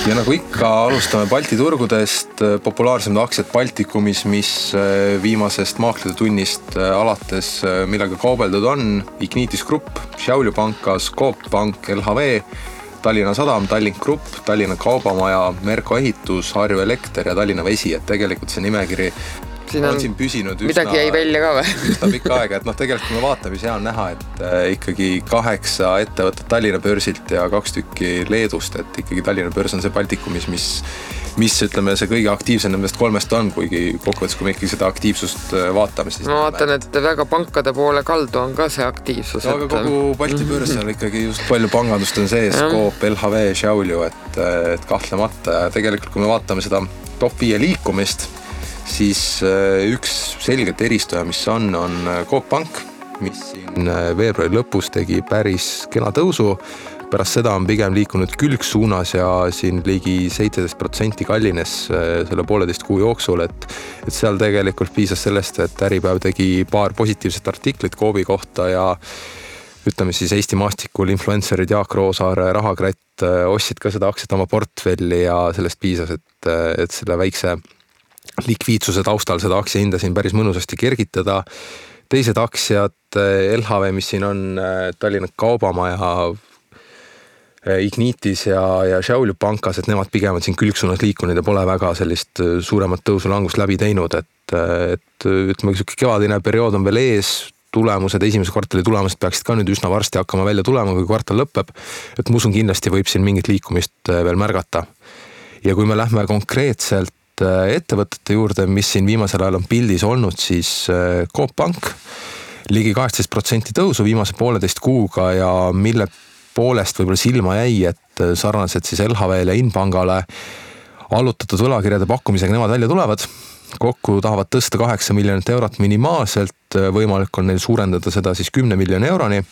Ja nagu ikka, alustame Balti turgudest. Populaarsemad aktsiad Baltikumis, mis viimasest maaklide tunnist alates millega kaubeldud on: Ignitis Grupp, Šiaulių pankas, Coop Pank, LHV, Tallinna Sadam, Tallink Grupp, Tallinna Kaubamaja, Merko Ehitus, Harju Elekter ja Tallinna Vesi. Et tegelikult see nimekiri on siin püsinud midagi jäi välja ka või? Üsna pikka aega, et tegelikult kui me vaatame, siis hea on näha, et ikkagi 8 ettevõtet Tallinna börsilt ja 2 tükki Leedust, et ikkagi Tallinna börs on see Baltikumis, mis ütleme see kõige aktiivsem nendest 3 on, kuigi kokkuvõttes, kui me ikkagi seda aktiivsust vaatame, siis ma vaatan, et väga pankade poole kaldu on ka see aktiivsus. Aga kogu Balti börs on ikkagi just palju pangandust on sees, Coop, LHV, Šiaulių, et kahtlemata. Ja tegelikult, kui me vaatame seda top 5 liikumist, siis üks selgelt eristuja, mis on Coop Pank, mis siin veebruari lõpus tegi päris kena tõusu. Pärast seda on pigem liikunud külgsuunas ja siin ligi 17% kallines selle 1,5 kuu jooksul, et seal tegelikult piisas sellest, et Äripäev tegi paar positiivset artiklit Coopi kohta ja ütleme siis Eesti maastikul influencerid Jaak Roosaare, Rahakratt ostsid ka seda aktsiat oma portfelli ja sellest piisas, et selle väikse likviidsuse taustal seda aktsia hinda siin päris mõnusasti kergitada. Teised aktsiad, LHV, mis siin on, Tallinna Kaubamaja, Ignitis ja Šiaulių pankas, et nemad pigem on siin külgsuunas liikunud ja pole väga sellist suuremat tõusu langust läbi teinud, et ütleme, kevadine periood on veel ees, tulemused, esimese kvartali tulemused peaksid ka nüüd üsna varsti hakkama välja tulema, kui kvartal lõpeb, et ma usun, kindlasti võib siin mingit liikumist veel märgata. Ja kui me lähme konkreetselt ettevõtete juurde, mis siin viimasel ajal on pildis olnud, siis Coop Pank ligi 18% tõusu viimase 1,5 kuuga ja mille poolest võib-olla silma jäi, et sarnaselt siis LHV-le ja Inpangale allutatud võlakirjade pakkumisega nemad välja tulevad. Kokku tahavad tõsta 8 miljonit eurot minimaalselt, võimalik on neil suurendada seda siis 10 miljoni euroni.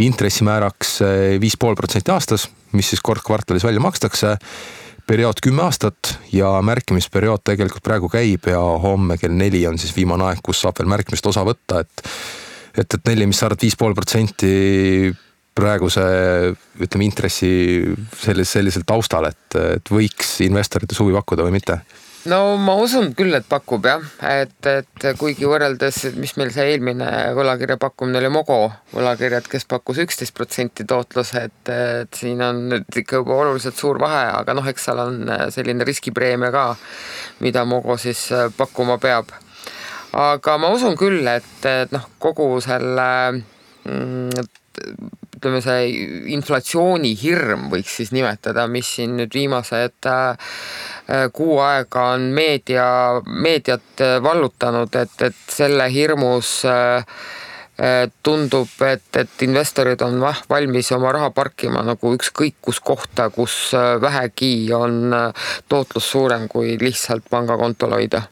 Intressimääraks 5,5% aastas, mis siis kord kvartalis välja makstakse. Periood 10 aastat ja märkimisperiood tegelikult praegu käib ja homme kell 4 on siis viimane aeg, kus saab veel märkimist osa võtta, et 4, mis sa arvad 5,5% praeguse, ütleme, intressi sellisel taustal, et võiks investorite suvi pakkuda või mitte? No ma usun küll, et pakub jah, et kuigi võrreldes, mis meil see eelmine võlakirja pakkumine oli Mogo võlakirjad, kes pakkus 11% tootlus, et siin on nüüd ikka juba oluliselt suur vahe, aga eks seal on selline riskipreemia ka, mida Mogo siis pakkuma peab. Aga ma usun küll, et kogu selle ütleme see inflatsiooni hirm võiks siis nimetada, mis siin nüüd viimased kuu aega on meediat vallutanud, et selle hirmus tundub, et investorid on valmis oma raha parkima nagu ükskõik kus kohta, kus vähegi on tootlus suurem kui lihtsalt pangakontol hoida.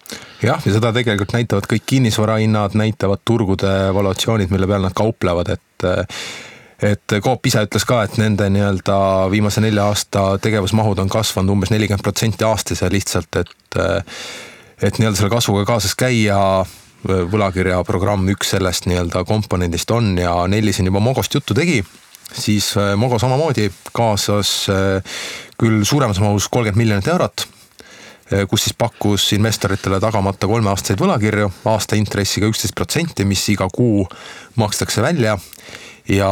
Jah, ja seda tegelikult näitavad kõik kinnisvarahinnad, näitavad turgude valuatsioonid, mille peal nad kauplevad, et Coop ise ütles ka, et nende viimase 4 aasta tegevusmahud on kasvanud umbes 40% aastas ja lihtsalt, et selle kasvuga kaasas käia, võlakirja programm üks sellest komponendist on ja Nelli siin juba Mogost juttu tegi, siis Mogo samamoodi kaasas küll suuremas mahus 30 miljonit eurot, kus siis pakkus investoritele tagamata 3-aastaseid võlakirju, aasta intressiga 11%, mis iga kuu makstakse välja. Ja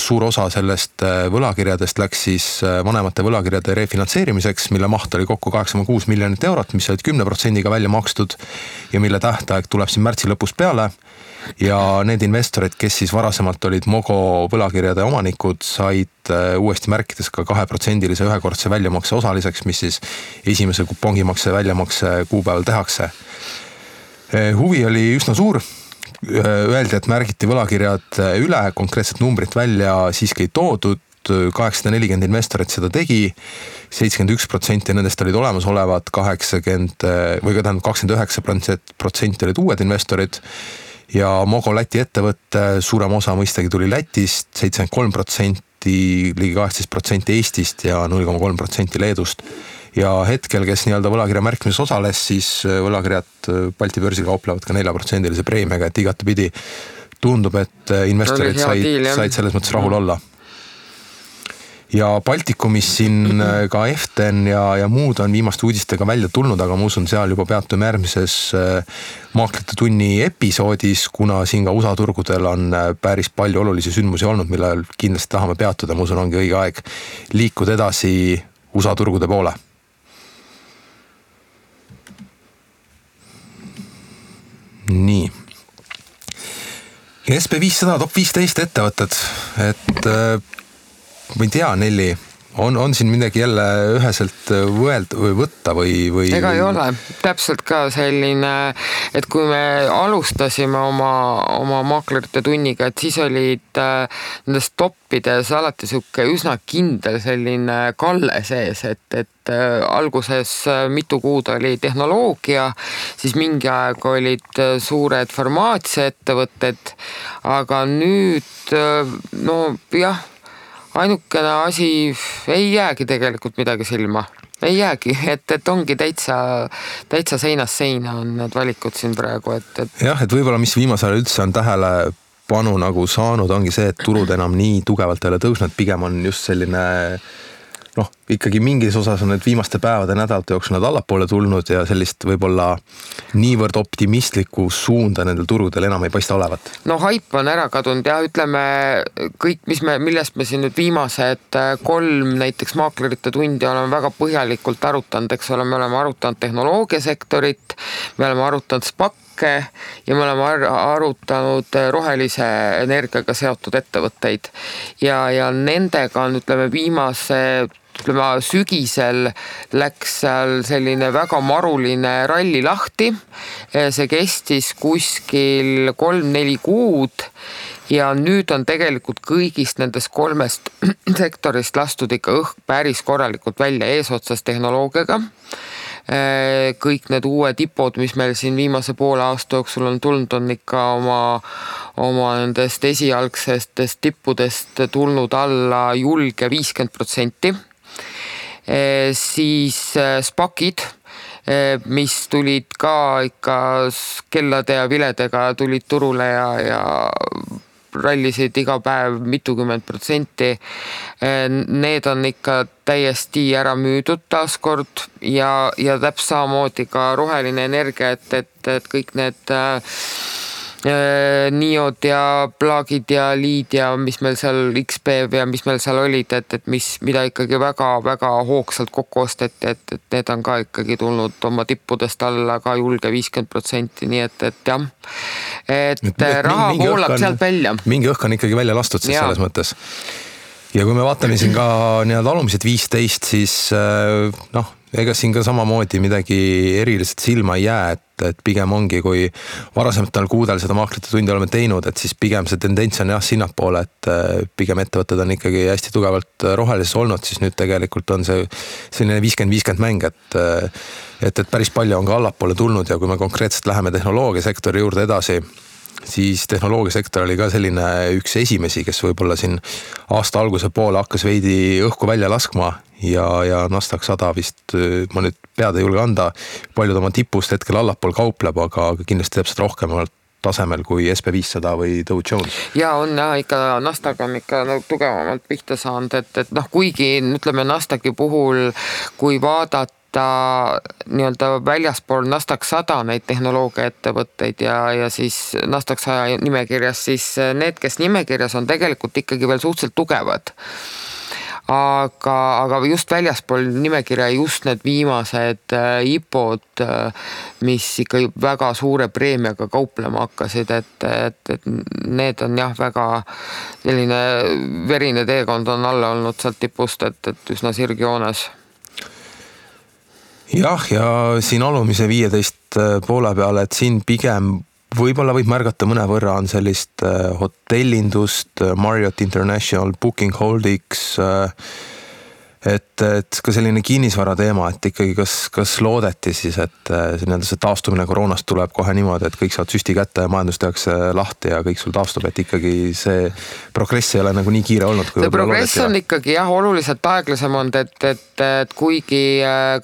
suur osa sellest võlakirjadest läks siis vanemate võlakirjade refinantseerimiseks, mille maht oli kokku 8,6 miljonit eurot, mis olid 10% välja makstud ja mille tähtaeg tuleb siin märtsi lõpus peale. Ja need investorid, kes siis varasemalt olid Mogo võlakirjade omanikud, said uuesti märkides ka 2% ühekordse väljamakse osaliseks, mis siis esimese kupongimakse väljamakse kuupäeval tehakse. Huvi oli üsna suur. Öeldi, et märgiti võlakirjad üle, konkreetset numbrit välja siiski ei toodud, 840 investorit seda tegi, 71% nendest olid olemasolevad, 29% olid uued investorid ja Mogo Läti ettevõtte suurem osa mõistagi tuli Lätist, 73%, ligi 18% Eestist ja 0,3% Leedust. Ja hetkel, kes võlakirja märkimises osales, siis võlakirjad Balti börsil kauplevad ka 4% preemiaga, et igatepidi tundub, et investorid said selles mõttes rahul olla. ja Baltikumis siin ka Eften ja muud on viimaste uudistega välja tulnud, aga ma usun, seal juba peatume järgmises Maaklite tunni episoodis, kuna siin ka USA turgudel on päris palju olulisi sündmusi olnud, millel kindlasti tahame peatuda. Ma usun, ongi õige aeg liikuda edasi USA turgude poole. Nii. SB500 top 15 ettevõtted, et ma ei tea, Nelli, on siin midagi jälle üheselt võtta või? Ega ei ole, täpselt ka selline, et kui me alustasime oma maaklerite tunniga, et siis olid nendes toppides alati siuke üsna kindel selline kalle sees, et alguses mitu kuud oli tehnoloogia, siis mingi aeg olid suured farmaatsiaettevõtted, aga nüüd jah, ainukene asi ei jäägi tegelikult midagi silma. Ei jäägi, et ongi täitsa seinast seina on need valikud siin praegu. Jah, et võib-olla mis viimasel üldse on tähelepanu nagu saanud, ongi see, et turud enam nii tugevalt ei ole tõusnud, pigem on just selline ikkagi mingis osas on need viimaste päevade nädalate jooksul nad allapoole tulnud ja sellist võib-olla niivõrd optimistlikku suunda nendel turudel enam ei paista olevat. Haip on ära kadunud ja ütleme kõik, millest me siin nüüd viimased 3 näiteks maaklerite tundi oleme väga põhjalikult arutanud, eks ole, me oleme arutanud tehnoloogiasektorit, me oleme arutanud SPAC-e ja me oleme arutanud rohelise energiaga seotud ettevõtteid ja nendega on, sügisel läks seal selline väga maruline ralli lahti. See kestis kuskil 3-4 kuud ja nüüd on tegelikult kõigist nendest 3 sektorist lastud ikka õhk päris korralikult välja eesotsas tehnoloogiaga. Kõik need uued tipod, mis meil siin viimase poole aasta jooksul on tulnud, on ikka oma nendest esialgsestest tippudest tulnud alla julge 50%. Siis SPAC-id, mis tulid ka ikka kellade ja viledega tulid turule ja rallisid iga päev mitukümmend %. Need on ikka täiesti ära müüdud taaskord ja täpselt samamoodi ka roheline energia, et kõik need Niod ja Plaagid ja Liid ja mis meil seal XPV ja mis meil seal olid, mida ikkagi väga-väga hoogsalt kokku osteti, et need on ka ikkagi tulnud oma tippudest alla ka julge 50%, nii et jah, et raha voolab sealt välja. Mingi õhk on ikkagi välja lastud siis selles mõttes. Ja kui me vaatame siin ka alumised 15, siis ega siin ka samamoodi midagi eriliselt silma ei jää, et pigem ongi, kui varasematel kuudel seda maaklite tundi oleme teinud, et siis pigem see tendents on sinnapoole, et pigem ettevõtted on ikkagi hästi tugevalt rohelises olnud, siis nüüd tegelikult on see selline 50-50 mäng, et päris palju on ka allapoole tulnud ja kui me konkreetselt läheme tehnoloogiasektori juurde edasi, siis tehnoloogiasektor oli ka selline üks esimesi, kes võib-olla siin aasta alguse poole hakkas veidi õhku välja laskma ja Nasdaq 100 vist, ma nüüd pead ei julge anda, paljud oma tipust hetkel allapool kaupleb, aga kindlasti täpselt rohkemalt tasemel kui SB500 või Dow Jones. Ja on ikka, Nasdaq on ikka tugevamalt pihta saanud, et kuigi ütleme Nasdaqi puhul, kui vaadata nii-öelda väljaspool Nasdaq 100 neid tehnoloogiaettevõtteid ja siis Nasdaq 100 nimekirjas, siis need, kes nimekirjas on tegelikult ikkagi veel suhteliselt tugevad. Aga just väljaspool nimekirja just need viimased IPO-d, mis ikka väga suure preemiaga kauplema hakkasid, et need on väga selline verine teekond on alla olnud sealt tipust, et üsna sirgjoones. Jah, ja siin alumise 15 poole peale, et siin pigem võib-olla võib märgata mõnevõrra on sellist hotellindust, Marriott International, Booking Holdings, et et ka selline kinnisvara teema, et ikkagi kas loodeti siis, et see taastumine koroonast tuleb kohe niimoodi, et kõik saavad süsti kätte ja majandus tehakse lahti ja kõik sul taastub, et ikkagi see progress ei ole nagu nii kiire olnud. See progress on ikkagi oluliselt aeglasem olnud, et kuigi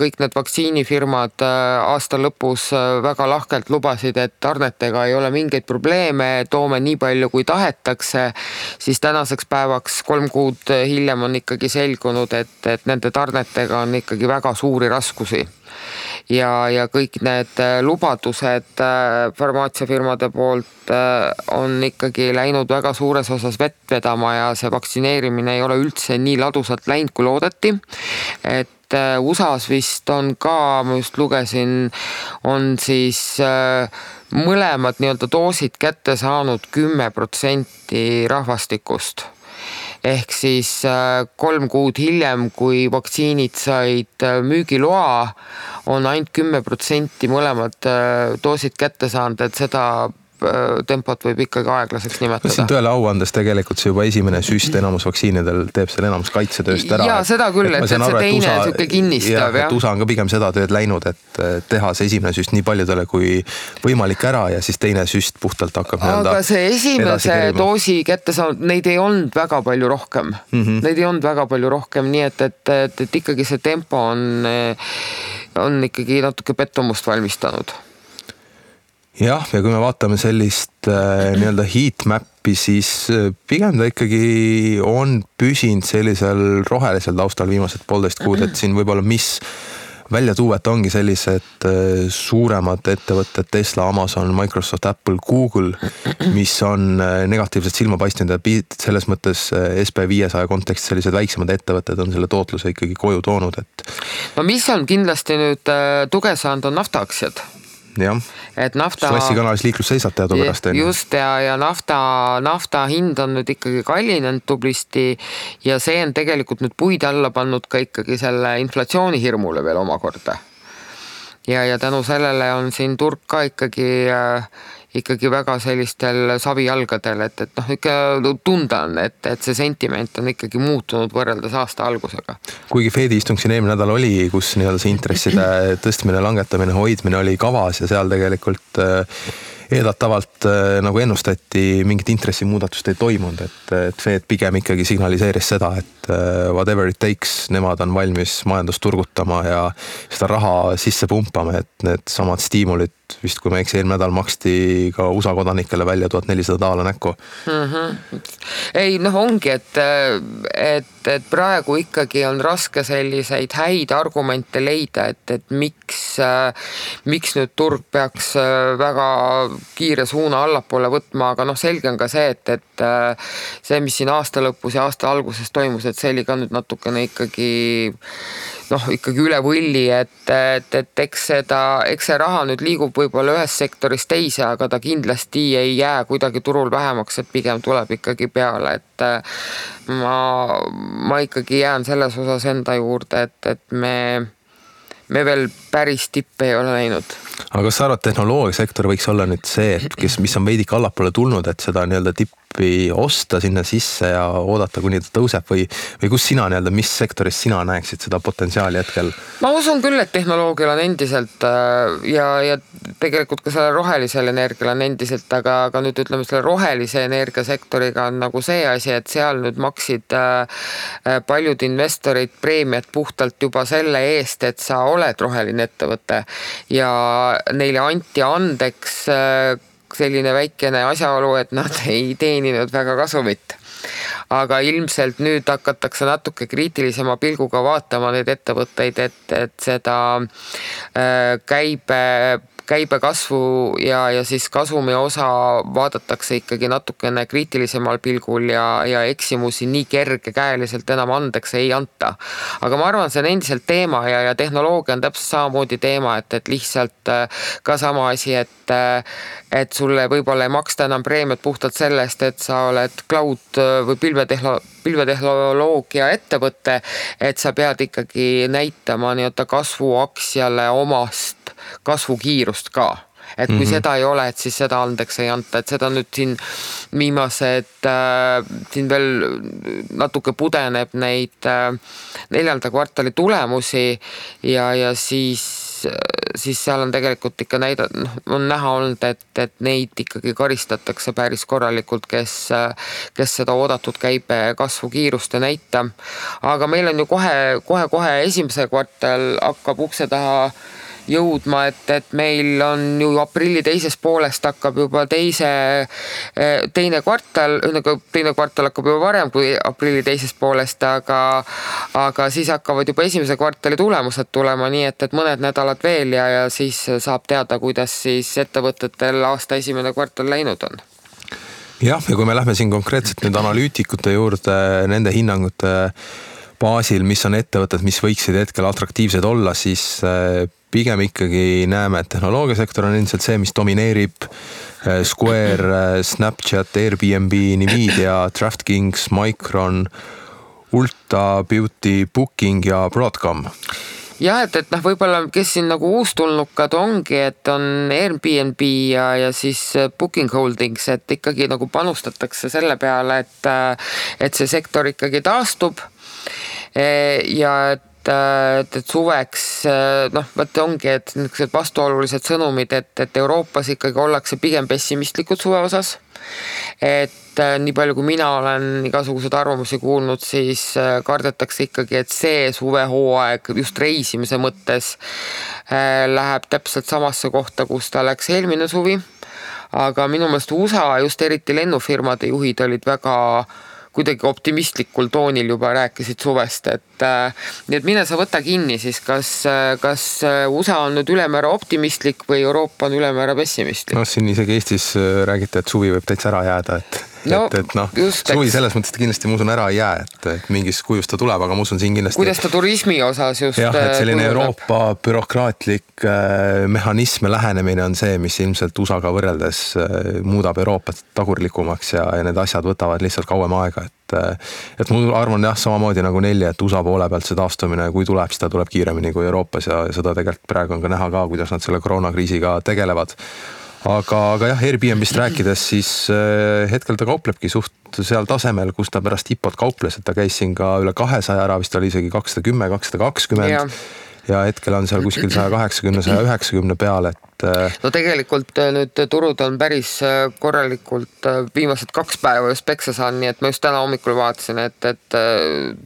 kõik need vaktsiinifirmad aasta lõpus väga lahkelt lubasid, et tarnetega ei ole mingeid probleeme, toome nii palju kui tahetakse, siis tänaseks päevaks 3 kuud hiljem on ikkagi selgunud, et nende tarnetega on ikkagi väga suuri raskusi. Ja kõik need lubadused farmaatsiafirmade poolt on ikkagi läinud väga suures osas vett vedama ja see vaktsineerimine ei ole üldse nii ladusalt läinud, kui loodeti. Et USAs vist on ka, ma just lugesin, on siis mõlemad nii-öelda doosid kätte saanud 10% rahvastikust. Ehk siis 3 kuud hiljem, kui vaktsiinid said müügiloa, on ainult 10% mõlemad doosid kätte saanud, et seda tempot võib ikkagi aeglaseks nimetada. Siin tõele au andes tegelikult see juba esimene süst enamus vaktsiinidel teeb selle enamus kaitsetööst ära. Jaa, seda küll, et see teine suke kinnistab. Et USA on ka pigem seda tööd läinud, et teha see esimene süst nii paljudele kui võimalik ära ja siis teine süst puhtalt hakkab aga see esimese doosi kätte saanud, neid ei olnud väga palju rohkem. Neid ei olnud väga palju rohkem, nii et ikkagi see tempo on ikkagi natuke pettumust valmistanud. Jah, ja kui me vaatame sellist nii-öelda heatmappi, siis pigem ta ikkagi on püsinud sellisel rohelisel taustal viimased 1,5 kuud, et siin võib-olla mis välja tuua, et ongi sellised suuremad ettevõtted, Tesla, Amazon, Microsoft, Apple, Google, mis on negatiivselt silma paistnud ja selles mõttes SP500 kontekstis sellised väiksemad ettevõtted on selle tootluse ikkagi koju toonud. No mis on kindlasti nüüd tuge saanud, on naftaaktsiad. Jah, Klassikanalis liiklus seisab teadupärast. Just ja nafta hind on nüüd ikkagi kallinenud tublisti ja see on tegelikult nüüd puid alla pannud ka ikkagi selle inflatsiooni hirmule veel omakorda. Ja tänu sellele on siin turg ka ikkagi väga sellistel savijalgadel, et ikka tunda on, et see sentiment on ikkagi muutunud võrreldes aasta algusega. Kuigi Fedi istung siin eelmine nädal oli, kus nii-öelda see intresside tõstmine, langetamine, hoidmine oli kavas ja seal tegelikult eeldatavalt nagu ennustati mingit intressimuudatust ei toimunud, et Fed pigem ikkagi signaliseeris seda, et whatever it takes, nemad on valmis majandust turgutama ja seda raha sisse pumpama, et need samad stiimulid vist kui me eelmine nädal maksti ka USA kodanikele välja $1400 näkku. Ei, ongi, et praegu ikkagi on raske selliseid häid argumente leida, et miks nüüd turg peaks väga kiire suuna allapoole võtma, aga selge on ka see, et see, mis siin aasta lõpus ja aasta alguses toimus, et see oli ka nüüd natukene ikkagi üle võlli, et eks see raha nüüd liigub võib-olla ühest sektorist teise, aga ta kindlasti ei jää kuidagi turul vähemaks, et pigem tuleb ikkagi peale, et ma ikkagi jään selles osas enda juurde, et me veel päris tippe ei ole näinud. Aga kas sa arvad, tehnoloogiasektor võiks olla nüüd see, mis on veidik allapoole tulnud, et seda nii-öelda tippi osta sinna sisse ja oodata, kuni ta tõuseb või kus sina nii-öelda, mis sektoris sina näeksid seda potentsiaali hetkel? Ma usun küll, et tehnoloogial on endiselt ja tegelikult ka selle rohelisel energial on endiselt, aga nüüd ütleme selle rohelise energiasektoriga on nagu see asi, et seal nüüd maksid paljud investorid preemiat puhtalt juba selle eest, et sa oled roheline ettevõte ja neile anti andeks selline väikene asjaolu, et nad ei teeninud väga kasumit. Aga ilmselt nüüd hakatakse natuke kriitilisema pilguga vaatama neid ettevõtteid, et seda käibe kasvu ja siis kasumi osa vaadatakse ikkagi natukene kriitilisemal pilgul ja eksimusi nii kergekäeliselt enam andeks ei anta. Aga ma arvan, see on endiselt teema ja tehnoloogia on täpselt samamoodi teema, et lihtsalt ka sama asi, et sulle võib-olla ei maksta enam preemiat puhtalt sellest, et sa oled cloud või pilvetehnoloogia ettevõte, et sa pead ikkagi näitama nii-öelda kasvuaktsiale omast kasvukiirust ka. et kui seda ei ole, et siis seda andeks ei anta, et seda nüüd siin viimased, siin veel natuke pudeneb neid 4. kvartali tulemusi ja siis seal on tegelikult ikka on näha olnud, et neid ikkagi karistatakse päris korralikult, kes seda oodatud käibe kasvu kiirust ei näita. Aga meil on ju kohe esimese kvartal hakkab ukse taha jõudma, et meil on ju aprilli teises poolest hakkab juba teine kvartal hakkab juba varem kui aprilli teises poolest, aga siis hakkavad juba esimese kvartali tulemused tulema, nii et mõned nädalad veel ja siis saab teada, kuidas siis ettevõtetel aasta esimene kvartal läinud on. Jah, ja kui me lähme siin konkreetselt nüüd analüütikute juurde, nende hinnangute baasil, mis on ettevõtted, mis võiksid hetkel atraktiivsed olla, siis pigem ikkagi näeme, et tehnoloogiasektor on ilmselt see, mis domineerib. Square, Snapchat, Airbnb, Nvidia, DraftKings, Micron, Ulta Beauty, Booking ja Broadcom. Jah, et võib-olla kes siin nagu uustulnukad ongi, et on Airbnb ja siis Booking Holdings, et ikkagi nagu panustatakse selle peale, et see sektor ikkagi taastub ja et suveks, võtte ongi, et niisugused vastuolulised sõnumid, et Euroopas ikkagi ollakse pigem pessimistlikud suve osas. Et nii palju, kui mina olen igasugused arvamusi kuulnud, siis kardetakse ikkagi, et see suvehooaeg just reisimise mõttes läheb täpselt samasse kohta, kus ta läks eelmine suvi. Aga minu meelest USA, just eriti lennufirmade juhid olid väga kuidagi optimistlikul toonil juba rääkisid suvest, nii et mine sa võta kinni siis, kas USA on nüüd ülemäära optimistlik või Euroopa on ülemäära pessimistlik? Siin isegi Eestis räägite, et suvi võib täitsa ära jääda, suvi selles mõttes kindlasti ma usun ära ei jää, et mingis kujus ta tuleb, aga ma usun siin kindlasti. Kuidas ta turismi osas just? Jah, et selline Euroopa bürokraatlik mehhanism ja lähenemine on see, mis ilmselt USA-ga võrreldes muudab Euroopat tagurlikumaks ja need asjad võtavad lihtsalt kauem aega, et ma arvan jah, samamoodi nagu Nelli, et USA poole pealt see taastumine, kui tuleb, siis ta tuleb kiiremini kui Euroopas ja seda tegelikult praegu on ka näha ka, kuidas nad selle koroonakriisiga tegelevad. Aga jah, Airbnbist rääkides, siis hetkel ta kauplebki suht seal tasemel, kus ta pärast IPO-t kauples, et ta käis siin ka üle 200 ära, vist oli isegi 210, 220 ja hetkel on seal kuskil 180, 190 peal, No tegelikult nüüd turud on päris korralikult viimased 2 päeva just peksa saan, nii et ma just täna hommikul vaatasin, et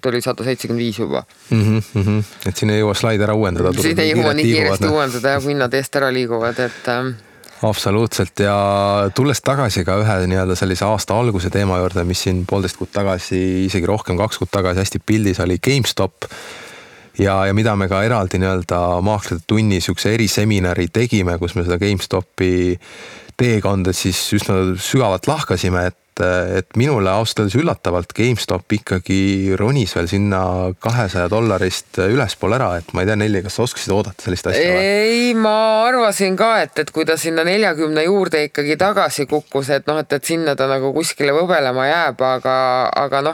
tuli 175 juba. Et siin ei jõua slaid ära uuendada. Siin ei jõua nii kiiresti uuendada ja kui hinnad eest ära liiguvad, et... Absoluutselt ja tulles tagasi ka ühe nii-öelda sellise aasta alguse teema juurde, mis siin 1,5 kuud tagasi, isegi rohkem 2 kuud tagasi hästi pildis oli GameStop ja mida me ka eraldi nii-öelda maaklade tunnis üks eriseminari tegime, kus me seda GameStopi teekonda siis üsna sügavalt lahkasime, et minule ausalt üllatavalt GameStop ikkagi ronis veel sinna $200 ülespool ära, et ma ei tea, Nelli, kas sa oskasid oodata sellist asja? Ei, ma arvasin ka, et kui ta sinna 40 juurde ikkagi tagasi kukkus, et sinna ta nagu kuskile võbelema jääb, aga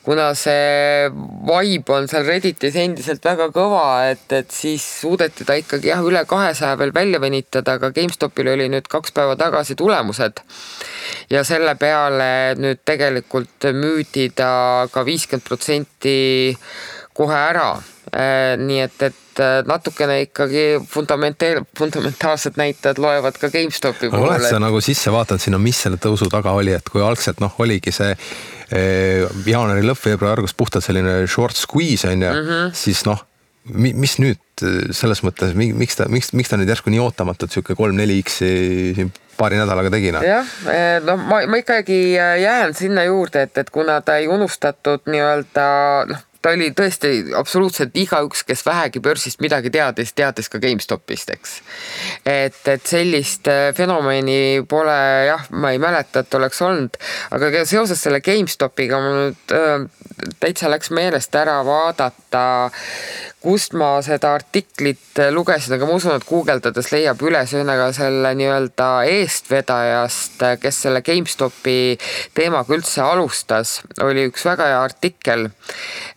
kuna see vibe on seal Redditis endiselt väga kõva, et siis suudeti ta ikkagi üle 200 veel välja venitada, aga GameStopil oli nüüd 2 päeva tagasi tulemused ja selle peale nüüd tegelikult müüdi ta ka 50% kohe ära. Nii et natukene ikkagi fundamentaalsed näitajad loevad ka GameStopi poole. Oled sa nagu sisse vaatanud sinna, mis selle tõusu taga oli, et kui algselt oligi see jaanuari lõpp, veebruari argus puhtalt selline short squeeze on ja siis mis nüüd selles mõttes, miks ta nüüd järsku nii ootamatult siuke 3-4x paari nädalaga tegina? Jah, ma ikkagi jään sinna juurde, et kuna ta ei unustatud nii-öelda, ta oli tõesti absoluutselt igaüks, kes vähegi börsist midagi teadis ka GameStopist, eks. Et sellist fenomeni pole, ma ei mäleta, et oleks olnud, aga seoses selle GameStopiga ma nüüd täitsa läks meelest ära vaadata, kust ma seda artiklit lugesin, aga ma usun, et guugeldades leiab üles ühega selle nii-öelda eestvedajast, kes selle GameStopi teemaga üldse alustas, oli üks väga hea artikkel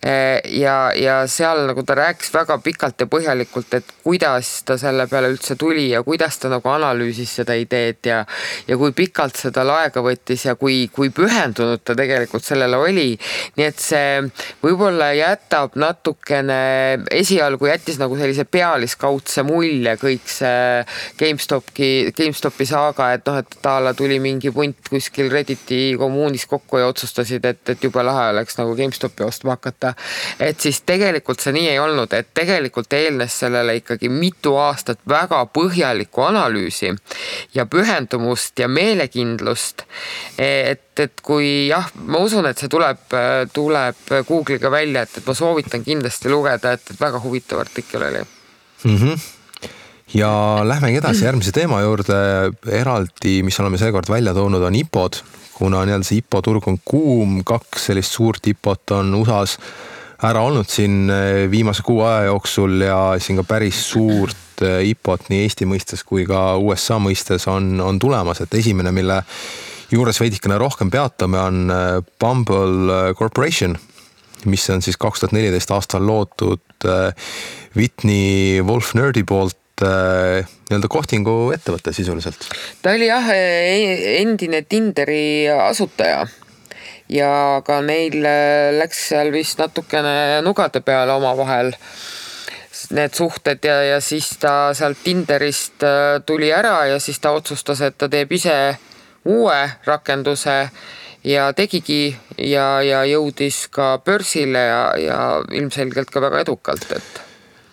ja seal nagu ta rääkis väga pikalt ja põhjalikult, et kuidas ta selle peale üldse tuli ja kuidas ta nagu analüüsis seda ideed ja kui pikalt seda aega võttis ja kui pühendunud ta tegelikult sellele oli. Nii et see võib-olla jätab natukene, esialgu jättis nagu sellise pealiskaudse mulje kõik see GameStopi saaga, et et taala tuli mingi punt kuskil Redditi kommuunis kokku ja otsustasid, et jube lahe oleks nagu GameStopi ostma hakata. Et siis tegelikult see nii ei olnud, et tegelikult eelnes sellele ikkagi mitu aastat väga põhjalikku analüüsi ja pühendumust ja meelekindlust, et kui ma usun, et see tuleb Google'iga välja, et ma soovitan kindlasti lugeda, et väga huvitav artikkel oli. Ja lähmegi edasi järgmise teema juurde. Eraldi, mis oleme seekord välja toonud, on IPO-d, kuna see IPO-turg on kuum, 2 sellist suurt IPO-t on USAs ära olnud siin viimase 6 aja jooksul ja siin ka päris suurt IPO-t nii Eesti mõistes kui ka USA mõistes on tulemas, et esimene, mille juures veidikene rohkem peatame, on Bumble Corporation, mis on siis 2014 aastal loodud Whitney Wolf Nerdy poolt nii-öelda kohtingu ettevõtte sisuliselt. Ta oli endine Tinderi asutaja ja ka neil läks seal vist natukene nugade peale oma vahel need suhted ja siis ta sealt Tinderist tuli ära ja siis ta otsustas, et ta teeb ise uue rakenduse ja tegigi ja jõudis ka börsile ja ilmselgelt ka väga edukalt, et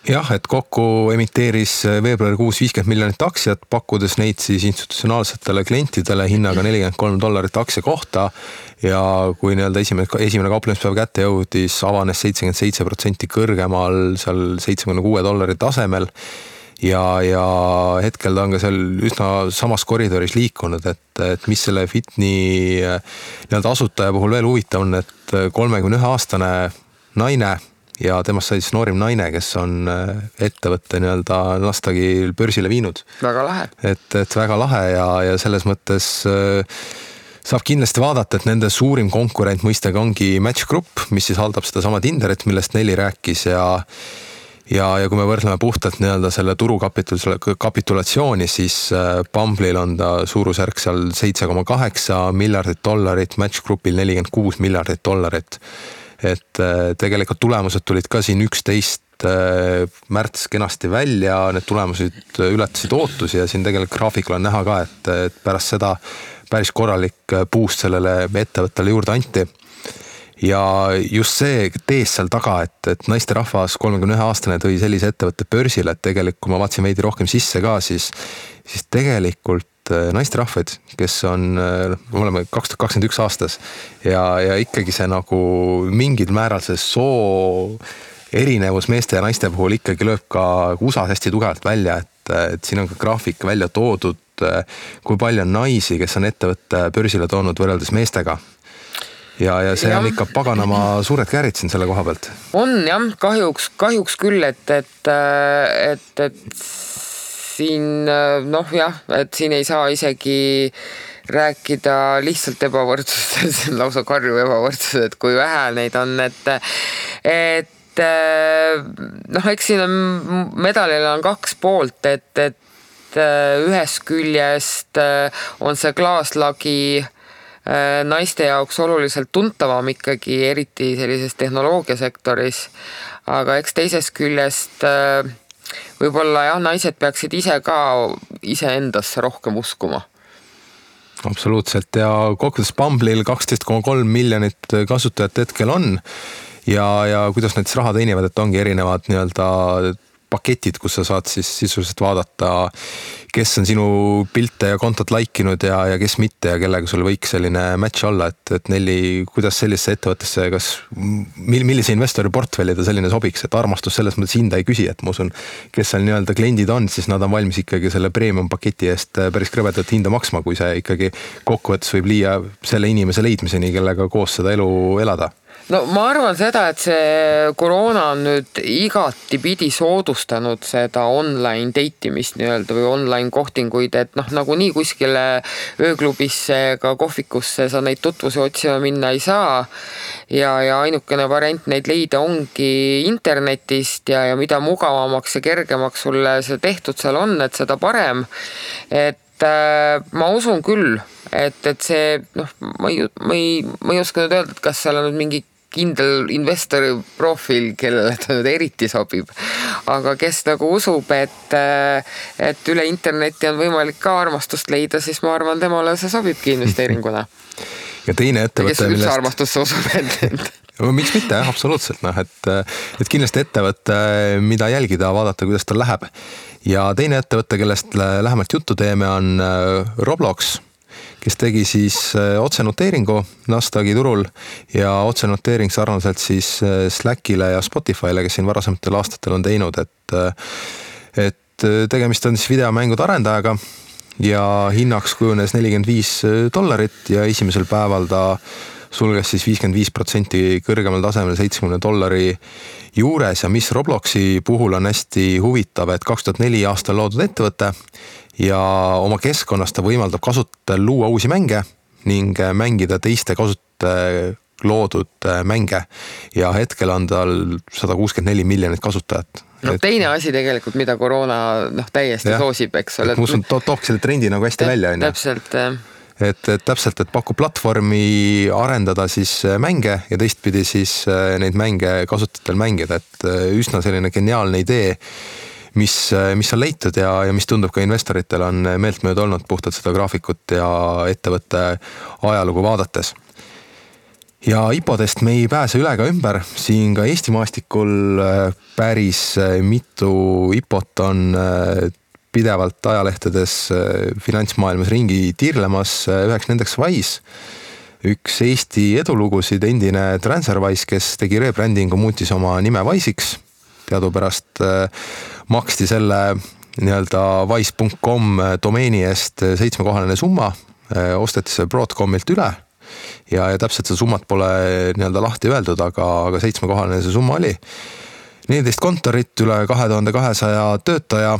jah, et kokku emiteeris veebruarikuus $50 miljonit aktsiat, pakkudes neid siis institutsionaalsetele klientidele hinnaga $43 aktsia kohta ja kui esimene kauplemispäev kätte jõudis, avanes 77% kõrgemal seal $76 tasemel ja hetkel ta on ka seal üsna samas koridoris liikunud, et mis selle Whitney asutaja puhul veel huvitav on, et 31-aastane naine ja temast sai siis noorim naine, kes on ettevõtte Nasdaqi börsile viinud. Väga lahe. Et väga lahe ja selles mõttes saab kindlasti vaadata, et nende suurim konkurent mõistega ongi Match Group, mis siis haldab seda sama Tinderit, millest Nelli rääkis ja kui me võrdleme puhtalt selle turukapitulatsiooni, siis Bumble'il on ta suurusjärk seal $7.8 miljardit, Match Groupil $46 miljardit. Et tegelikult tulemused tulid ka siin 11 märts kenasti välja, need tulemused ületasid ootusi ja siin tegelikult graafikul on näha ka, et pärast seda päris korralik boost sellele ettevõttele juurde anti. Ja just see tees seal taga, et naisterahvas 31-aastane tõi sellise ettevõtte börsile, et tegelikult kui ma vaatasin veidi rohkem sisse ka, siis tegelikult naisterahvaid, kes on, me oleme 2021 aastas ja ikkagi see nagu mingil määral see soo erinevus meeste ja naiste puhul ikkagi lööb ka USA hästi tugevalt välja, et siin on ka graafik välja toodud, kui palju on naisi, kes on ettevõtte börsile toonud võrreldes meestega. Ja see on ikka paganama suured käärid siin selle koha pealt. On jah, kahjuks küll, et siin et siin ei saa isegi rääkida lihtsalt ebavõrdsused, see on lausa karju ebavõrdsused, et kui vähe neid on, et eks siin on medalil on 2 poolt, et ühest küljest on see klaaslagi naiste jaoks oluliselt tuntavam ikkagi, eriti sellises tehnoloogiasektoris, aga eks teisest küljest võib-olla naised peaksid ise endasse rohkem uskuma. Absoluutselt ja kokkuvõttes Bumble'il 12,3 miljonit kasutajat hetkel on ja kuidas need raha teenivad, et ongi erinevad paketid, kus sa saad siis sisuliselt vaadata, kes on sinu pilte ja kontot laikinud ja kes mitte ja kellega sul võiks selline match olla, et Nelli, kuidas sellisesse ettevõttesse, millise investori portfelli ta selline sobiks, et armastus selles mõttes hinda ei küsi, et ma usun, kes seal kliendid on, siis nad on valmis ikkagi selle premium paketi eest päris krõbedat hinda maksma, kui see ikkagi kokkuvõttes võib liia selle inimese leidmiseni, kellega koos seda elu elada. no ma arvan seda, et see koroona on nüüd igati pidi soodustanud seda online date'imist nii-öelda või online kohtinguid, et noh, nagunii kuskile ööklubisse ega kohvikusse sa neid tutvusi otsima minna ei saa ja ainukene variant neid leida ongi internetist ja mida mugavamaks ja kergemaks sulle see tehtud seal on, et seda parem, et ma usun küll, et see, noh, ma ei oska nüüd öelda, et kas seal on nüüd mingi kindel investori profiil, kellele ta nüüd eriti sobib, aga kes nagu usub, et üle interneti on võimalik ka armastust leida, siis ma arvan, temale see sobibki investeeringuna. Ja teine ettevõte, kes üldse armastusse usub, miks mitte, absoluutselt, noh, et kindlasti ettevõte, mida jälgida, vaadata, kuidas tal läheb. Ja teine ettevõte, kellest lähemalt juttu teeme, on Roblox, kes tegi siis otsenoteeringu Nasdaqi turul ja otsenoteering sarnaselt siis Slackile ja Spotify'le, kes siin varasematel aastatel on teinud, et tegemist on siis videomängude arendajaga ja hinnaks kujunes $45 ja esimesel päeval ta sulges siis 55% kõrgemal tasemel $70 juures ja mis Robloxi puhul on hästi huvitav, et 2004 aastal loodud ettevõte ja oma keskkonnas ta võimaldab kasutajal luua uusi mänge ning mängida teiste kasutajate loodud mänge ja hetkel on tal 164 miljonit kasutajat. No teine asi tegelikult, mida koroona täiesti soosib, eks ole. Ma usun, toobki selle trendi nagu hästi välja. Täpselt. Et pakub platvormi arendada siis mänge ja teistpidi siis neid mänge kasutajatel mängida, et üsna selline geniaalne idee, mis on leitud ja mis tundub ka investoritel on meeltmööda olnud puhtalt seda graafikut ja ettevõtte ajalugu vaadates. Ja IPO-dest me ei pääse üle ka ümber, siin ka Eesti maastikul päris mitu IPO-t on pidevalt ajalehtedes finantsmaailmas ringi tiirlemas, üheks nendeks Wise, üks Eesti edulugusid, endine TransferWise, kes tegi rebrandingu, muutis oma nime Wise'iks, teadupärast maksti selle nii-öelda wise.com domeeni eest 7-kohaline summa, osteti see Broadcomilt üle ja täpselt see summat pole nii-öelda lahti öeldud, aga 7-kohaline see summa oli. 14 kontorit, üle 2200 töötaja,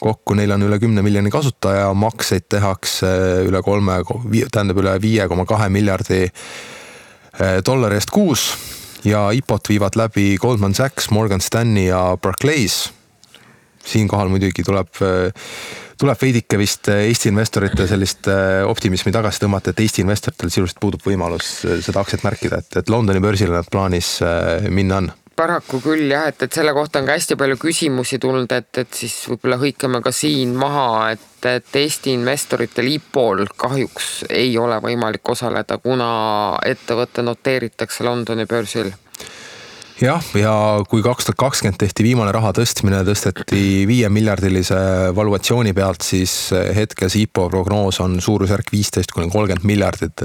kokku neil on üle 10 miljoni kasutaja, makseid tehakse üle 5,2 miljardi dollari eest kuus ja IPO-t viivad läbi Goldman Sachs, Morgan Stanley ja Barclays. Siinkohal muidugi tuleb veidike vist Eesti investorite sellist optimismi tagasi tõmmata, et Eesti investoritel sisuliselt puudub võimalus seda aktsiat märkida, et Londoni börsile nad plaanis minna on. Paraku küll jah, et selle kohta on ka hästi palju küsimusi tulnud, et siis võib-olla hõikame ka siin maha, et Eesti investoritel IPO-l kahjuks ei ole võimalik osaleda, kuna ettevõtte noteeritakse Londoni börsil. Jah, ja kui 2020 tehti viimane raha tõstmine, tõsteti 5 miljardilise valuatsiooni pealt, siis hetkel see IPO prognoos on suurusjärk 15-30 miljardit,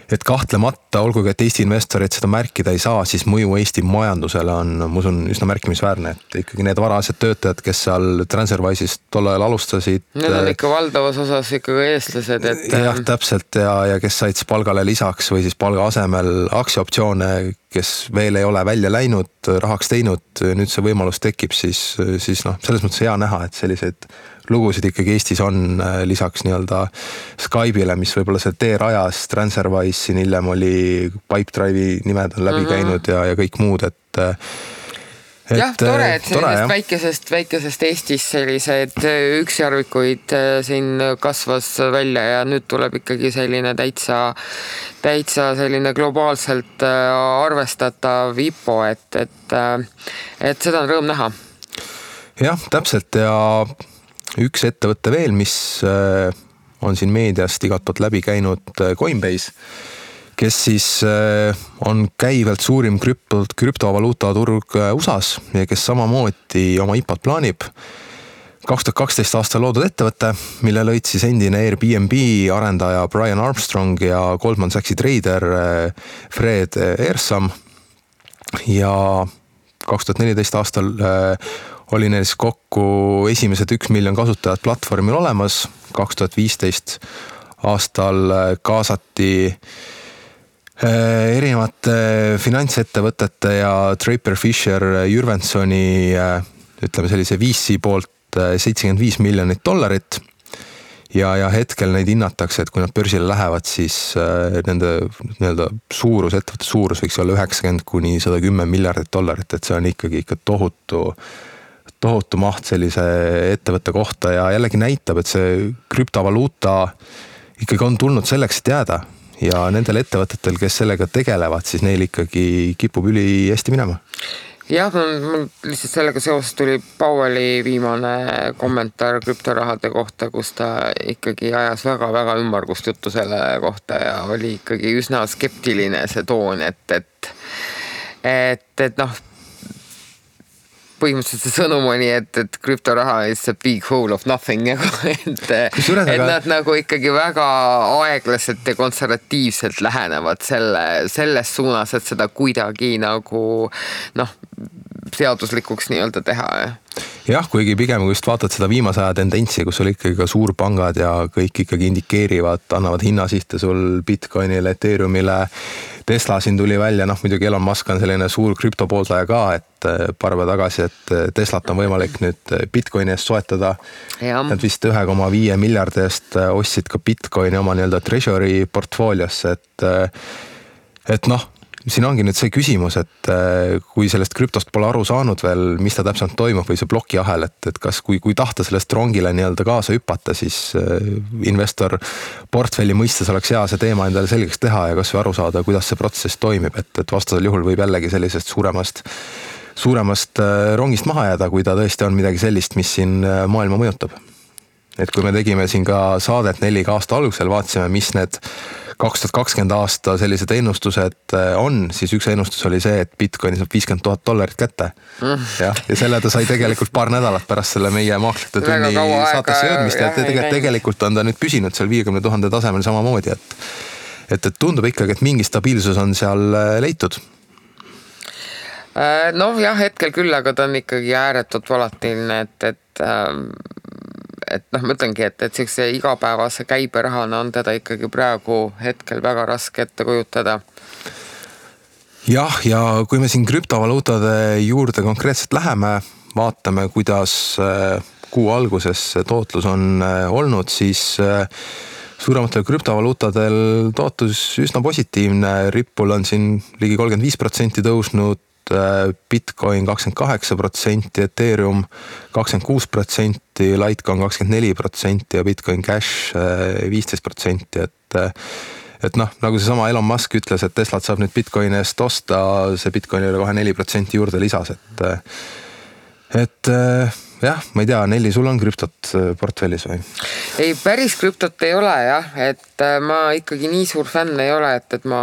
et kahtlemata, olgugi et Eesti investorid seda märkida ei saa, siis mõju Eesti majandusele on, ma usun, üsna märkimisväärne, et ikkagi need varased töötajad, kes seal TransferWise'ist tol ajal alustasid. Need on ikka valdavas osas ikkagi eestlased, et... Jah, täpselt ja kes said palgale lisaks või siis palga asemel aktsiaoptsioone, kes veel ei ole välja läinud, rahaks teinud, nüüd see võimalus tekib, siis selles mõttes hea näha, et selliseid lugusid ikkagi Eestis on lisaks nii-öelda Skype'ile, mis võib-olla see tee rajas, TransferWise siin hiljem oli Pipedrive'i nimed on läbi käinud ja kõik muud, et jah, tore, et sellisest väikesest Eestis sellised üksjärvikuid siin kasvas välja ja nüüd tuleb ikkagi selline täitsa selline globaalselt arvestatav IPO, et seda on rõõm näha. Jah, täpselt ja üks ettevõtte veel, mis on siin meediast igatpoolt läbi käinud, Coinbase, kes siis on käivalt suurim krüptovaluuta turg USAs ja kes samamoodi oma IPO-t plaanib. 2012 aastal loodud ettevõte, mille lõid siis endine Airbnb arendaja Brian Armstrong ja Goldman Sachsi trader Fred Ehrsam ja 2014 aastal oli neil kokku esimesed 1 miljon kasutajat platvormil olemas. 2015 aastal kaasati erinevate finantsettevõtete ja Draper Fisher Jürvensoni ütleme sellise VC poolt $75 miljonit ja hetkel neid hinnatakse, et kui nad börsile lähevad, siis nende nii-öelda suurus, ettevõtte suurus võiks olla $90 kuni $110 miljardit, et see on ikkagi ikka tohutu maht sellise ettevõtte kohta ja jällegi näitab, et see krüptovaluuta ikkagi on tulnud selleks, et jääda ja nendel ettevõtetel, kes sellega tegelevad, siis neil ikkagi kipub üli hästi minema. Jah, mul lihtsalt sellega seoses tuli Powelli viimane kommentaar krüptorahade kohta, kus ta ikkagi ajas väga-väga ümmargust juttu selle kohta ja oli ikkagi üsna skeptiline see toon, et noh, põhimõtteliselt see sõnum oli, et krüptoraha is a big hole of nothing, et nad nagu ikkagi väga aeglaselt ja konservatiivselt lähenevad selles suunas, et seda kuidagi nagu seaduslikuks nii-öelda teha. Jah, kuigi pigem kui just vaatad seda viimase aja tendentsi, kus oli ikkagi ka suurpangad ja kõik ikkagi indikeerivad, annavad hinnasihte sul Bitcoinile, Ethereumile, Tesla siin tuli välja, muidugi Elon Musk on selline suur krüptopooldaja ka, et paar päeva tagasi, et Teslat on võimalik nüüd Bitcoini eest soetada. Nad vist 1,5 miljardi eest ostsid ka Bitcoini oma nii-öelda treasury portfooliosse, et siin ongi nüüd see küsimus, et kui sellest krüptost pole aru saanud veel, mis ta täpselt toimub või see plokiahel, et kas kui tahta sellest rongile nii-öelda kaasa hüpata, siis investor portfelli mõistes oleks hea see teema endale selgeks teha ja kas või aru saada, kuidas see protsess toimib, et vastasel juhul võib jällegi sellisest suuremast rongist maha jääda, kui ta tõesti on midagi sellist, mis siin maailma mõjutab. Et kui me tegime siin ka saadet 4 aasta algusel, vaatasime, mis need 2020 aasta sellised ennustused on, siis üks ennustus oli see, et Bitcoini saab $50,000 kätte. Ja selle ta sai tegelikult paar nädalat pärast selle meie Maaklite tunni saatesse jõudmist ja tegelikult on ta nüüd püsinud seal 50,000 tasemel samamoodi, et tundub ikkagi, et mingi stabiilsus on seal leitud. Jah, hetkel küll, aga ta on ikkagi ääretult volatiilne, et ma ütlengi, et sellise igapäevase käiberahana on teda ikkagi praegu hetkel väga raske ette kujutada. Jah, ja kui me siin krüptovaluutade juurde konkreetselt läheme, vaatame, kuidas kuu alguses tootlus on olnud, siis suurematel krüptovaluutadel tootlus üsna positiivne. Ripple on siin ligi 35% tõusnud, Bitcoin 28%, Ethereum 26%, Litecoin 24% ja Bitcoin Cash 15%, et nagu see sama Elon Musk ütles, et Teslat saab nüüd Bitcoini eest osta, see Bitcoinile kohe 4% juurde lisas, et jah, ma ei tea, Nelli, sul on krüptot portfellis või? Ei, päris krüptot ei ole jah, et ma ikkagi nii suur fänn ei ole, et ma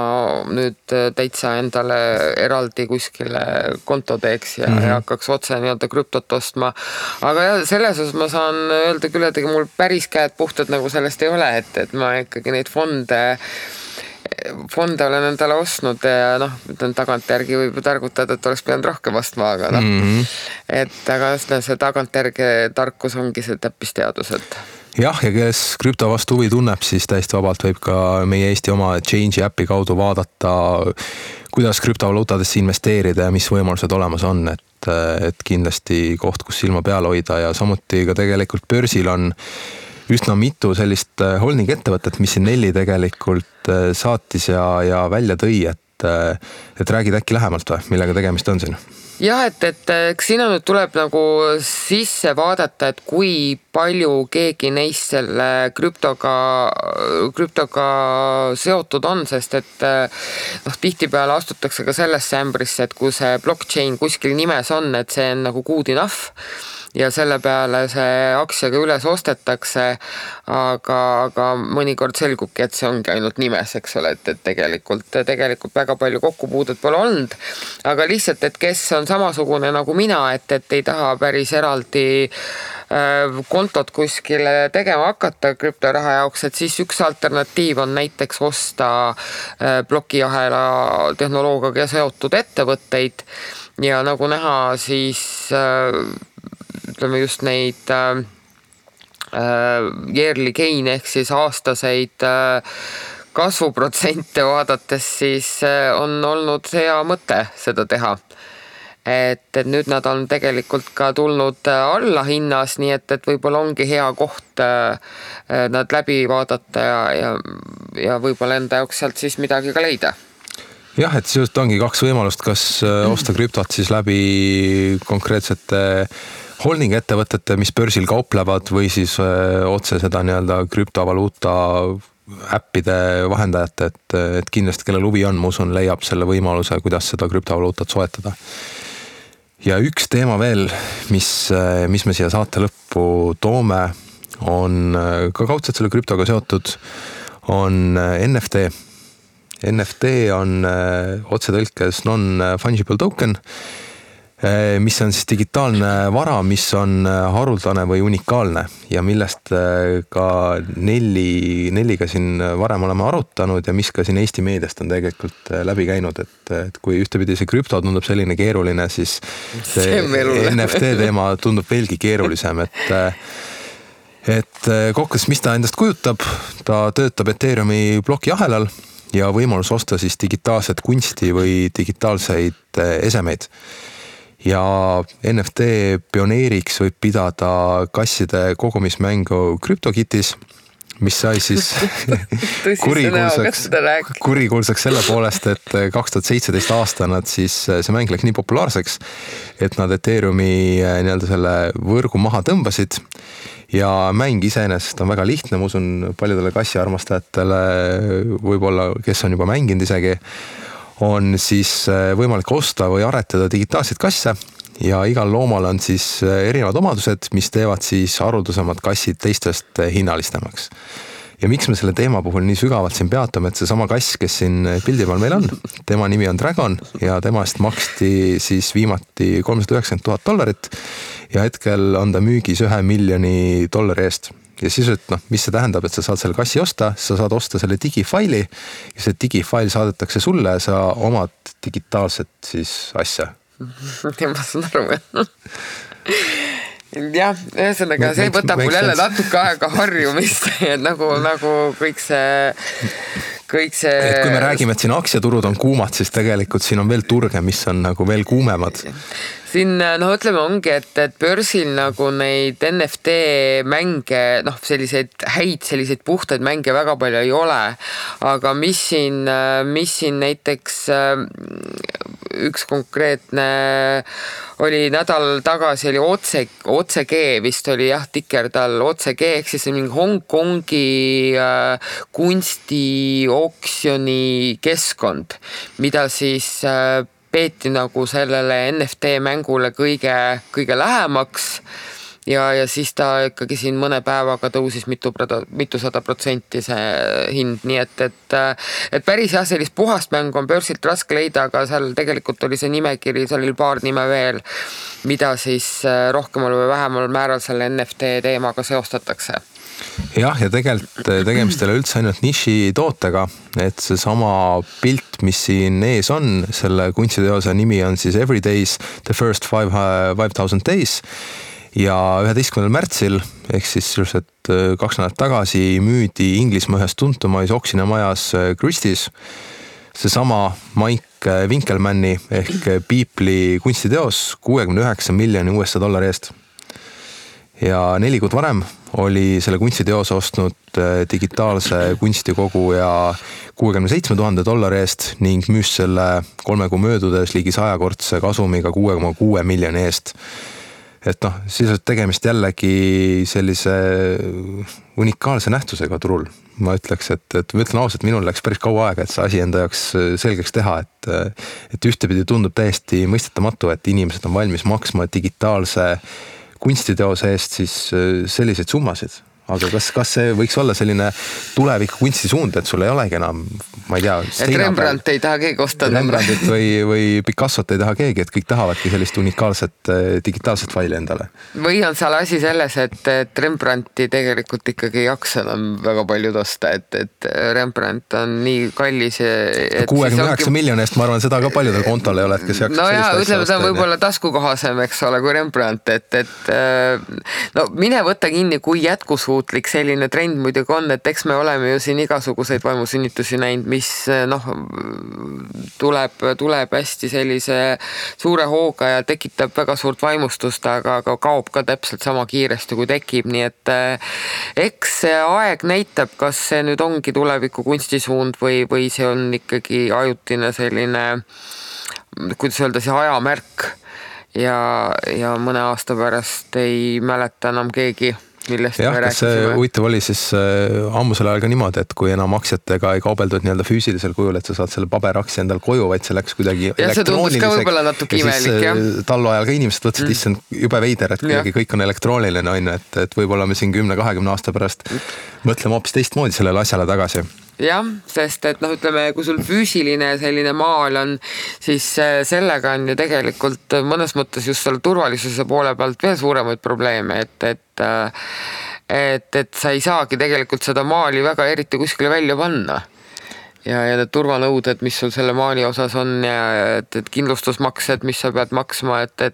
nüüd täitsa endale eraldi kuskile konto teeks ja hakkaks otse nii-öelda krüptot ostma. Aga jah, selles osas ma saan öelda küll, et mul päris käed puhtad nagu sellest ei ole, et ma ikkagi neid fonde olen endale ostnud ja tagantjärgi võib targutada, et oleks pidanud rohkem ostma, aga aga see tagantjärgi tarkus ongi see täppisteadus, et jah, ja kes krüpto vastu huvi tunneb, siis täiesti vabalt võib ka meie Eesti oma Change'i äpi kaudu vaadata, kuidas krüptovaluutadesse investeerida ja mis võimalused olemas on, et kindlasti koht, kus silma peal hoida ja samuti ka tegelikult börsil on üsna mitu sellist holding ettevõtet, mis siin Nelli tegelikult saatis ja välja tõi, et räägid äkki lähemalt või, millega tegemist on siin? Jah, et sinna nüüd tuleb nagu sisse vaadata, et kui palju keegi neist selle krüptoga seotud on, sest et tihtipeale astutakse ka sellesse ämbrisse, et kui see blockchain kuskil nimes on, et see on nagu good enough ja selle peale see aktsiaga üles ostetakse, aga mõnikord selgubki, et see ongi ainult nimes, eks ole, et tegelikult väga palju kokkupuudet pole olnud, aga lihtsalt, et kes on samasugune nagu mina, et ei taha päris eraldi kontot kuskile tegema hakata krüptoraha jaoks, et siis üks alternatiiv on näiteks osta plokiahela tehnoloogiaga seotud ettevõtteid ja nagu näha, siis ütleme just neid yearly gain ehk siis aastaseid kasvuprotsente vaadates, siis on olnud hea mõte seda teha. Et nüüd nad on tegelikult ka tulnud alla hinnas, nii et võib-olla ongi hea koht nad läbi vaadata ja võib-olla enda jaoks sealt siis midagi ka leida. Jah, et siis ongi kaks võimalust, kas osta krüptot siis läbi konkreetsete holding ettevõtete, mis börsil kauplevad või siis otse seda nii-öelda krüptovaluuta äppide vahendajate, et kindlasti kellel huvi on, ma usun, leiab selle võimaluse, kuidas seda krüptovaluutat soetada. Ja üks teema veel, mis me siia saate lõppu toome, on ka kaudselt selle krüptoga seotud, on NFT. NFT on otsetõlkes non-fungible token, mis on siis digitaalne vara, mis on haruldane või unikaalne ja millest ka Nelliga siin varem oleme arutanud ja mis ka siin Eesti meediast on tegelikult läbi käinud, et kui ühtepidi see krüpto tundub selline keeruline, siis see NFT teema tundub veelgi keerulisem, et kokkuvõttes, mis ta endast kujutab, ta töötab Ethereumi plokiahelal ja võimalus osta siis digitaalset kunsti või digitaalseid esemeid. Ja NFT pioneeriks võib pidada kasside kogumismängu CryptoKitties, mis sai siis kurikuulsaks selle poolest, et 2017 aasta nad siis, see mäng läks nii populaarseks, et nad Ethereumi nii-öelda selle võrgu maha tõmbasid ja mäng iseenesest on väga lihtne, ma usun paljudele kassiarmastajatele, võib-olla kes on juba mänginud isegi, on siis võimalik osta või aretada digitaalseid kasse ja igal loomal on siis erinevad omadused, mis teevad siis haruldasemad kassid teistest hinnalistemaks. Ja miks me selle teema puhul nii sügavalt siin peatame, et see sama kass, kes siin pildi peal meil on, tema nimi on Dragon ja temast maksti siis viimati $390,000 ja hetkel on ta müügis $1 miljoni eest. Ja siis, et mis see tähendab, et sa saad selle kassi osta, sa saad osta selle digifaili ja see digifail saadetakse sulle ja sa omad digitaalset siis asja. Ja ma saan aru. Jah, ühesõnaga, see võtab mul jälle natuke aega harjumist, nagu kõik see... Et kui me räägime, et siin aktsiaturud on kuumad, siis tegelikult siin on veel turge, mis on nagu veel kuumemad. Siin, ütleme ongi, et börsil nagu neid NFT mänge, selliseid puhtaid mänge väga palju ei ole, aga mis siin näiteks üks konkreetne oli nädal tagasi oli OCG vist oli tikertal OCG, ehk siis mingi Hongkongi kunstioksjoni keskkond, mida siis peeti nagu sellele NFT mängule kõige lähemaks ja siis ta ikkagi siin mõne päevaga tõusis mitusada protsenti see hind, nii et päris sellist puhast mängu on börsilt raske leida, aga seal tegelikult oli see nimekiri, seal oli paar nime veel, mida siis rohkemal või vähemal määral selle NFT teemaga seostatakse. Jah, ja tegelikult tegemist ei ole üldse ainult niši tootega, et see sama pilt, mis siin ees on, selle kunstiteose nimi on siis Every Days, The First 5000 Days ja 11. märtsil, ehk siis 2 nädalat tagasi müüdi Inglismaa ühes tuntumais oksjonamajas Christie's seesama Mike Winkelmanni ehk Beepli kunstiteos $69 miljoni eest. Ja 4 kuud varem oli selle kunstiteose ostnud digitaalse kunstikogu ja $67,000 eest ning müüs selle 3 kuu möödudes ligi 100-kordse kasumiga $6,6 miljoni eest. Et siis on tegemist jällegi sellise unikaalse nähtusega turul. Ma ütleks, et ma ütlen ausalt, minul läks päris kaua aega, et see asi enda jaoks selgeks teha, et ühtepidi tundub täiesti mõistetamatu, et inimesed on valmis maksma digitaalse kunstiteose eest siis selliseid summasid. Aga kas see võiks olla selline tuleviku kunstisuund, et sul ei olegi enam, ma ei tea... Et Rembrandt ei taha keegi osta. Rembrandtit või Picassot ei taha keegi, et kõik tahavadki sellist unikaalset digitaalset faili endale. Või on seal asi selles, et Rembrandti tegelikult ikkagi ei jaksa enam väga palju osta, et Rembrandt on nii kallis. 69 miljoni eest, ma arvan, seda ka paljudel kontol ei ole, et kes jaksab sellist asja ütleme, ta on võib-olla taskukohasem, eks ole, kui Rembrandt, et mine võtta kinni, kui jätkusuutlik jätkusuutlik selline trend muidugi on, et eks me oleme ju siin igasuguseid vaimusünnitusi näinud, mis tuleb hästi sellise suure hooga ja tekitab väga suurt vaimustust, aga kaob ka täpselt sama kiiresti, kui tekib, nii et eks see aeg näitab, kas see nüüd ongi tuleviku kunstisuund või see on ikkagi ajutine selline, kuidas öelda, see ajamärk ja mõne aasta pärast ei mäleta enam keegi, millest me rääkisime. Huvitav oli siis ammusel ajal ka niimoodi, et kui enam aktsiatega ei kaubeldud nii-öelda füüsilisel kujul, et sa saad selle paberaktsia endal koju, vaid see läks kuidagi elektrooniliseks. Ja siis tallu ajal ka inimesed võtsid, issand jube veider, et kuidagi kõik on elektrooniline, et võib-olla me siin 10-20 aasta pärast mõtleme hoopis teistmoodi sellele asjale tagasi. Jah, sest et ütleme, kui sul füüsiline selline maal on, siis sellega on ju tegelikult mõnes mõttes just selle turvalisuse poole pealt veel suuremaid probleeme, et sa ei saagi tegelikult seda maali väga eriti kuskile välja panna. Ja need turvanõuded, mis sul selle maali osas on ja et kindlustusmaksed, mis sa pead maksma, et